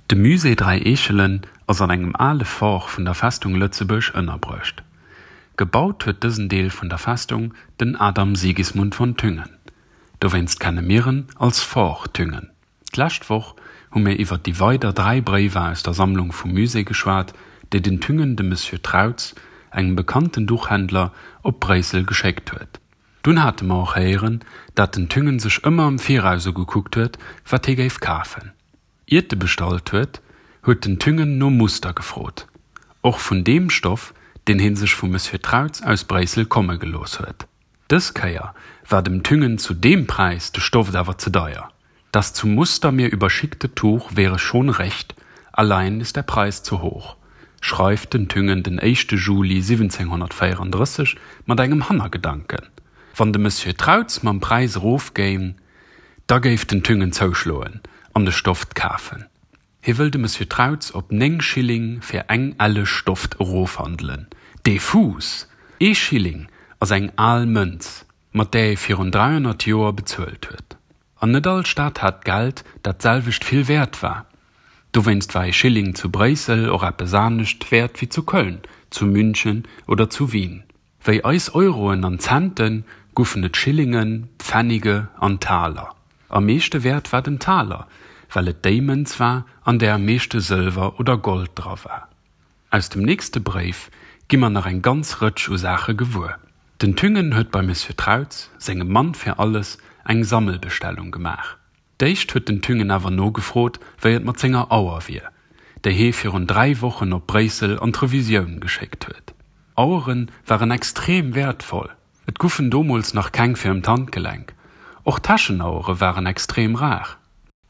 De Musée Dräi Eechelen ass an engem ale Fort vun der Festung Lëtzebuerg ënnerbruecht. Gebaut huet dësen Deel vun der Festung den Adam Sigismund von Thüngen. Dowéinst kenne mir en als Fort Thüngen. D'lescht Woch hu mir iwwer déi weider 3 Bréiwer aus der Sammlung vum Musée geschwat, déi den Thüngen dem Monsieur Trautz, engem bekannten Duchhändler, op Bréissel geschéckt huet. Dunn hate mer och héieren, dat den Thüngen sech ëmmer am Viraus ugekuckt huet, wat hie géif kafen. Iert e bestallt huet, huet den Thüngen no Muster gefrot, och vun deem Stoff, deen hie sech vum Monsieur Trautz aus Bréissel komme gelooss huet. Dës Kéier war dem Thüngen zu deem Präis de Stoff awer ze deier. Das zum Muster mir überschickte Tuch wäre schon recht, allein ist der Preis zu hoch, schreift den Thüngen den éischte Juli 1734 mat engem Hannergedanken, Wann de Monsieur Trautz mam Präis erofgéing, da géif den Thüngen zouschloen an de Stoft kafen. Hie wëll de Monsieur Trautz op 9 Schilling fir eng Elle Stoft erofhandelen. Dee Fuuss! Ee Schilling ass eng al Mënz, mat där ee virun 300 Joer bezuelt huet. An net all Stad hat Geld, dat d'selwecht vill wäert war. Dowéinst war ee Schilling zu Bréissel och eppes anescht wäert wéi zu Köln, zu München oder zu Wien. Wéi eis Euroen an Centen guffen et Schillingen, Pfennige an Taler. Am meeschte wäert war den Taler, well et déi Mënz war, an där am meeschte Sëlwer oder Gold dra war. Aus dem nächste Bréif gi mer nach eng ganz Rëtsch u Saache gewuer. Den Thüngen huet beim Monsieur Trautz, sengem Mann fir alles, eng Sammelbestellung gemaach. D'éischt huet den Thüngen awer nogefrot, wéi et mat senger Auer wier, déi hee virun 3 Wochen op Bréissel an d'Revisioun geschéckt huet. Auere waren extrem wäertvoll, et guffen domools nach keng fir ëm d'Handgelenk. Och Täschenauere waren extrem rar.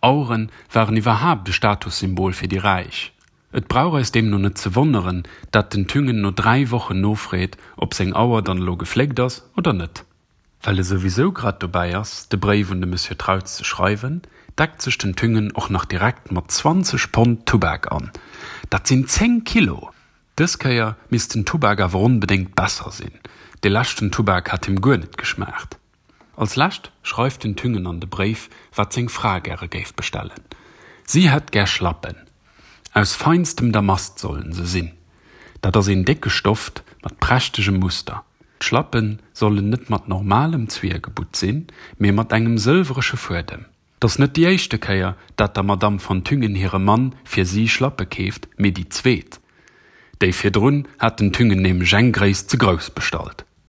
Auere waren iwwerhaapt e Statussymbol fir déi Räich. Et brauch eis deemno net ze wonneren, dat den Thüngen no 3 Wochen nofreet, ob seng Auer dann elo gefléckt ass oder net. Well e souwisou grad dobäi ass, de Bréif un de Monsieur Trautz ze schreiwen, deckt sech den Thüngen och nach direkt mat 20 Pond Tubak an. Dat sinn 10 Kilo! Dës Kéier misst den Tubak awer onbedéngt besser sinn, dee leschten Tubak hat him guer net geschmaacht. Als lescht schreift den Thüngen an de Bréif, wat seng Fra gäre géif bestellen. Si hätt gär Schlappen. Aus feinstem Damast sollen se sinn. Dat ass een décke Stoft mat prächtegem Muster. D'Schlappe sollen net mat normalem Zwiergebutt sinn, mee mat engem sëlwresche Fuedem. 't ass net déi éischte Kéier, dat der Madamm von Thüngen hire Mann fir si Schlappe keeft, mee déi zweet. Déi virdrun hat den Thüngen nämlech eng Gréisst ze grouss bestallt.